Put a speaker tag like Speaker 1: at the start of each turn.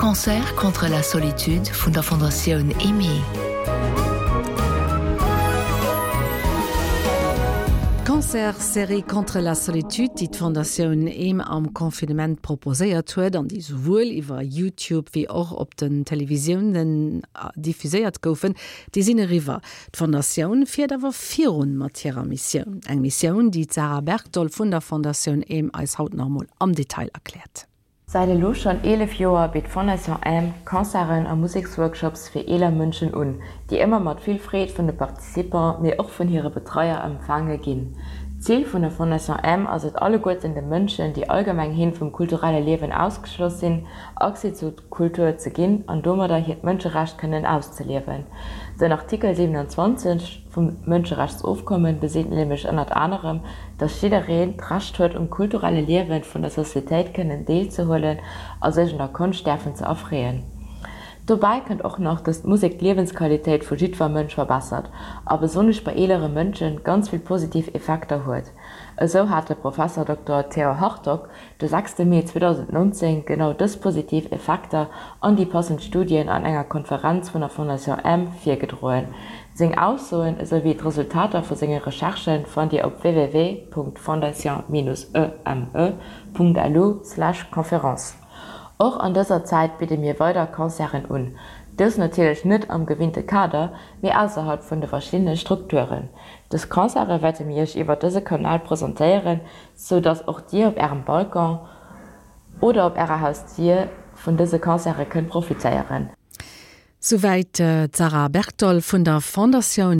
Speaker 1: Concerts contre la solitude vun der Fondatioun Aimée.
Speaker 2: D'Concerts-Serie Contre la solitude, déi d'Fondatioun Aime am Confinement proposéiert huet an déi souwuel iwwer YouTube wéi och op den Televisiounen diffuséiert goufen, déi sinn eriwwer. D'Fondatioun fiert awer virun mat hirer Missioun. Eng Missioun, déi d'Sarah Bergdoll vun der Fondatioun Aime eis haut nach emol am Detail erkläert.
Speaker 3: Säit elo schonn 11 Joer bitt d'Fondation Aime Concerten a Museksworkshops fir eeler Mënschen un, déi ëmmer mat vill Freed vun de Participants, mee och vun hire Betreier empfaange ginn. D'Zil vun der Fondation Aime ass et alleguerten de Mënschen, déi allgemeng hin vum kulturelle Liewen ausgeschloss sinn, Accès zu Kultur ze ginn an domadder hiert Mënscherecht kënnen auszeliewen. Den Artikel 27 vum Mënscherechtsofkommen beseet nämlech ënnert anerem, dass jiddereen d'Recht huet um kulturelle Liewen vun der Societéit kënnen deelzehuelen a sech un der Konscht däerfen ze erfreeën. Dobäi kënnt och nach, dass d'Musek d'Liewensqualitéit vu jiddwer Mënsch verbessert a besonnesch bei eelere Mënsche ganz vill positiv Effekter huet. Esou hat de Professor Dokter Theo Hartog de sechste Mee 2019 genau dës positiv Effekter an déi passend Studien an enger Konferenz vun der Fondation Aime virgedroen. Seng Aussoen esou wéi d'Resultater vu senge Recherchen fannt Dir op www.fondation-eme.lu/conférence. Och an dëser Zäit bidde mir weider Concerten un, dës natierlech net am gewinnte Kader, mee ausserhalb vun de verschiddene Strukturen. Dës Concerte wäerte mir Iech iwwer dëse Kanal presentéieren, sou dass och dir op ärem Balcon oder op ärer Hausdier vun dëse Concerte kënnt profitéieren.
Speaker 2: Souwäit d'Sarah Bertol vun der Fondatioun.